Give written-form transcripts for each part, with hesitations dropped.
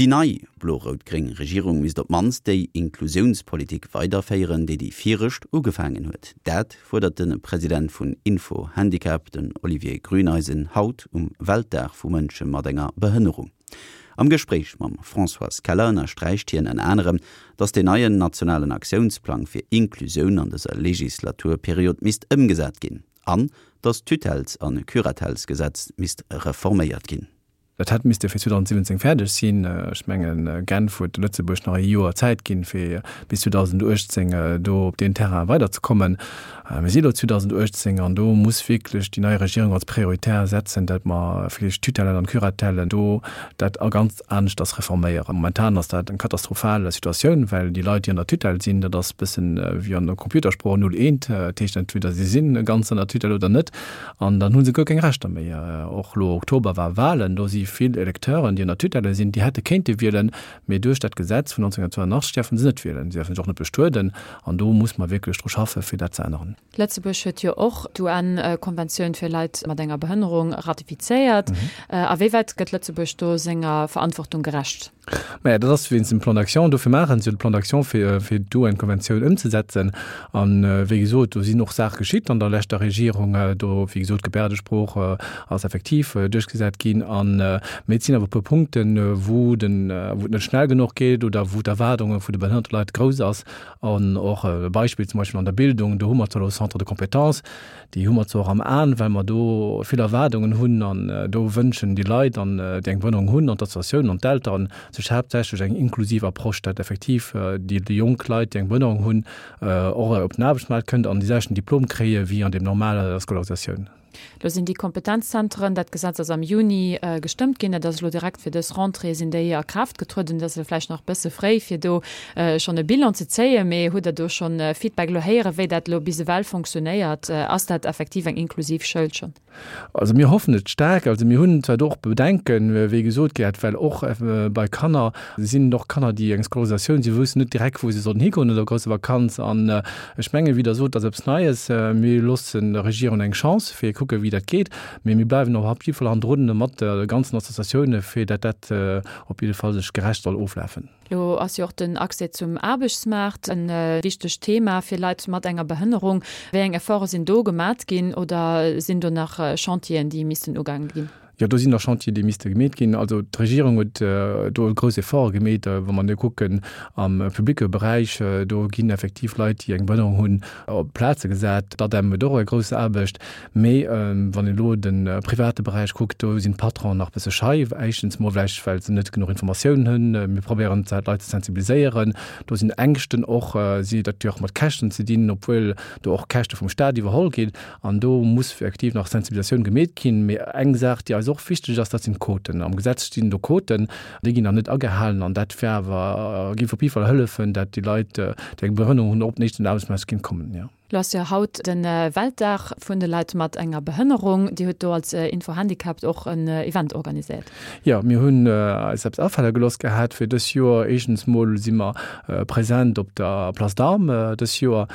Déi nei blo-rout-gréng Regierung misst op d'mannst déi Inklusiounspolitik weiderféieren, déi déi viregt ugefaangen huet. Dat fuerdert de President vun Info Handicap, den Olivier Grüneisen, haut um Weltdag vu Mënsche mat enger Behënnerung. Am Gespréich mam Françoise Keller ënnersträicht hien ënner anerem, datt deen neien nationalen Aktiounsplang fir Inklusioun an dëser Legislaturperiod misst ëmgesat ginn an datt d'Tutelles a Curatellesgesetz misst reforméiert ginn. Dat hätt misste fir 2017 fäerdeg sinn. Ech mengen, Genf huet Lëtzebuerg nach e Joer Zäit ginn, fir bis 2018 do op deen Terrain weiderzekommen. Mir si elo 2018 an do muss wierklech déi nei Regierung als prioritär setzen, dat mer vläicht d'Tutellen an d'Curatellen do dat a ganz aneschters reforméieren. Momentan ass dat eng katastrophal Situatioun, well déi Leit, déi an der Tutelle sinn, dat ass e bëssen wéi an der Computersprooch null eent, dat heescht entweder si si ganz an der Tutelle oder net. An dann hu se guer keng Rechter méi. Och elo Oktober war Wahlen, do si vill Electeuren, déi an der Tutelle sinn, déi hätte kéinte wielen, mee duerch dat Gesetz vun 1982 däerfe se net wielen. Si däerfe sech och net bestueden. An do muss mer wierklech dru schaffen, fir dat ze änneren. Lëtzebuerg huet jo och d'UN-Konventioun fir Leit mat enger Behënnerung ratifizéiert. A wéi wäit gëtt Lëtzebuerg do senger Verantwortung gerecht? Maja, dat ass wéinst dem Plan d'action. Dofir maachen se jo de Plan d'action, fir, fir d'UN-Konventioun ëmzesetzen. An, wéi gesot, do sinn och Saache geschitt an der leschter Regierung. Do, wéi gesot, d'Gebärdesprooch ass effektiv duerchgesat ginn. An, mee et sinn awer e puer Punkten, wou den, wou et net schnell genuch geet oder wou d'Erwaardunge vu de behënnerte Leit grouss ass. An och e Beispill zum Beispill an der Bildung, do hu mer zwar elo Centre de compétences, Déi hu mer zwar och am Aen, well mer do vill Erwaardungen hunn an do wënschen déi Leit, an déi eng Behënnerung hunn, an d'Associatiounen an d'Elteren sech haaptsächlech eng inklusiv Approche, dat effektiv déi jonk Leit, déi eng Behënnerung hunn, och op den Aarbechtsmaart kënnt an déi selwechten Diplom kréie wéi an deem normaler Scolarisatioun. Lo sinn déi Kompetenzzenteren, dat Gesetz ass am Juni gestëmmt ginn, dat ass elo direkt fir dës Rentrée sinn déi a Kraaft getrueden. Dat ass elo vläicht nach e bësse fréi, fir do schonn e Bilan ze zéien, mee hutt Der do schonn Feedback elo héieren, wéi dat elo bis ewell fonctionnéiert? Ass dat effektiv eng inklusiv Schoul schonn? Also mir hoffen et staark. Also mir hunn zwar do och Bedenken, wéi gesot gëtt, well och bei Kanner sinn et och Kanner, déi eng Scolarisatioun, si woussen net direkt, wou se sollen higoen no der grousser Vakanz. An ech mengen, wéi Der sot, dat ass eppes Neies. Mir loossen der Regierung eng Chance, fir kucken, wéi dat geet. Mee mir bleiwen och op jidde Fall hannendrun mat de ganzen Associatioune, fir dat dat op jidde Fall sech gerecht soll oflafen. Lo ass jo och den Accès zum Aarbechtsmaart e wichtegt Thema fir Leit mat enger Behënnerung. Wéi eng Efforte sinn do gemat ginn oder sinn do nach Chantieren, déi missten ugaange ginn? Jo, do sinn nach Chantier, déi misste gemeet ginn. Also d'Regierung huet do grouss Efforte gemeet. Wa mer elo kucken am publicke Beräich, do ginn effektiv Leit, déi eng Behënnerung hunn, op Plaze gesat. D'ADEM huet och eng grouss Aarbecht. Mee wann een elo de private Beräich kuckt, do sinn d'Patronen nach e bësse schei. Éischtens mol vläicht, well se net genuch Informatiounen hunn. Mir probéieren zwar d'Leit ze sensibiliséieren. Do sinn Ängschten och, si dat huet jo och mat Käschten ze dinn, obwuel do och Käschte vum Staat iwwerholl ginn. An do muss effektiv nach Sensibilisatioun gemeet ginn. Mee eng Saach, déi eis och wichteg ass, dat sinn d'Quoten. Am Gesetz stinn do Quoten, déi ginn nach net agehalen. An dat wär awer, géif op jidde Fall hëllefen, dat déi Leit, déi eng Behënnerung hunn, och op den éischten Aarbechtsmaart kéint kommen, jo. Lo ass jo haut de Weltdag vun de Leit mat enger Behënnerung. Dir hutt do als Info Handicapped och en Event organiséiert. Jo, mir hunn eis eppes afale gelooss gehat fir dës Joer. Éischtens mol si mer present op der Place d'Armes dës Joer.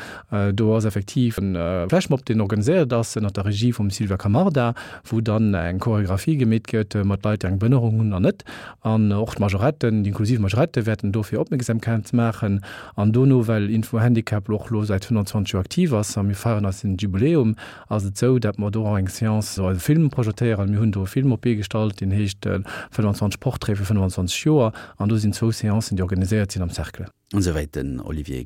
Do ass effektiv e Flashmob, deen organiséiert ass ënnert der Regie vum Sylvia Camarda, wou dann eng Choreographie gemeet gëtt mat Leit, déi eng Behënnerung hunn an net. An och d'Majoretten, déi inklusiv Majorette wäerten do fir Opmierksamkeit maachen. An dono, well Info Handicap och elo säit 25 Joer aktiv ass a mir feieren eisen Jubiläum, ass et esou, dat mer do och eng Seance, eise Film projetéieren. Mir hunn do e Film op d'Bee gestallt, deen heescht 25 Portraite fir 25 Joer an do sinn zwou Seancen, déi organiséiert sinn am Cercle. Esouwäit den Olivier.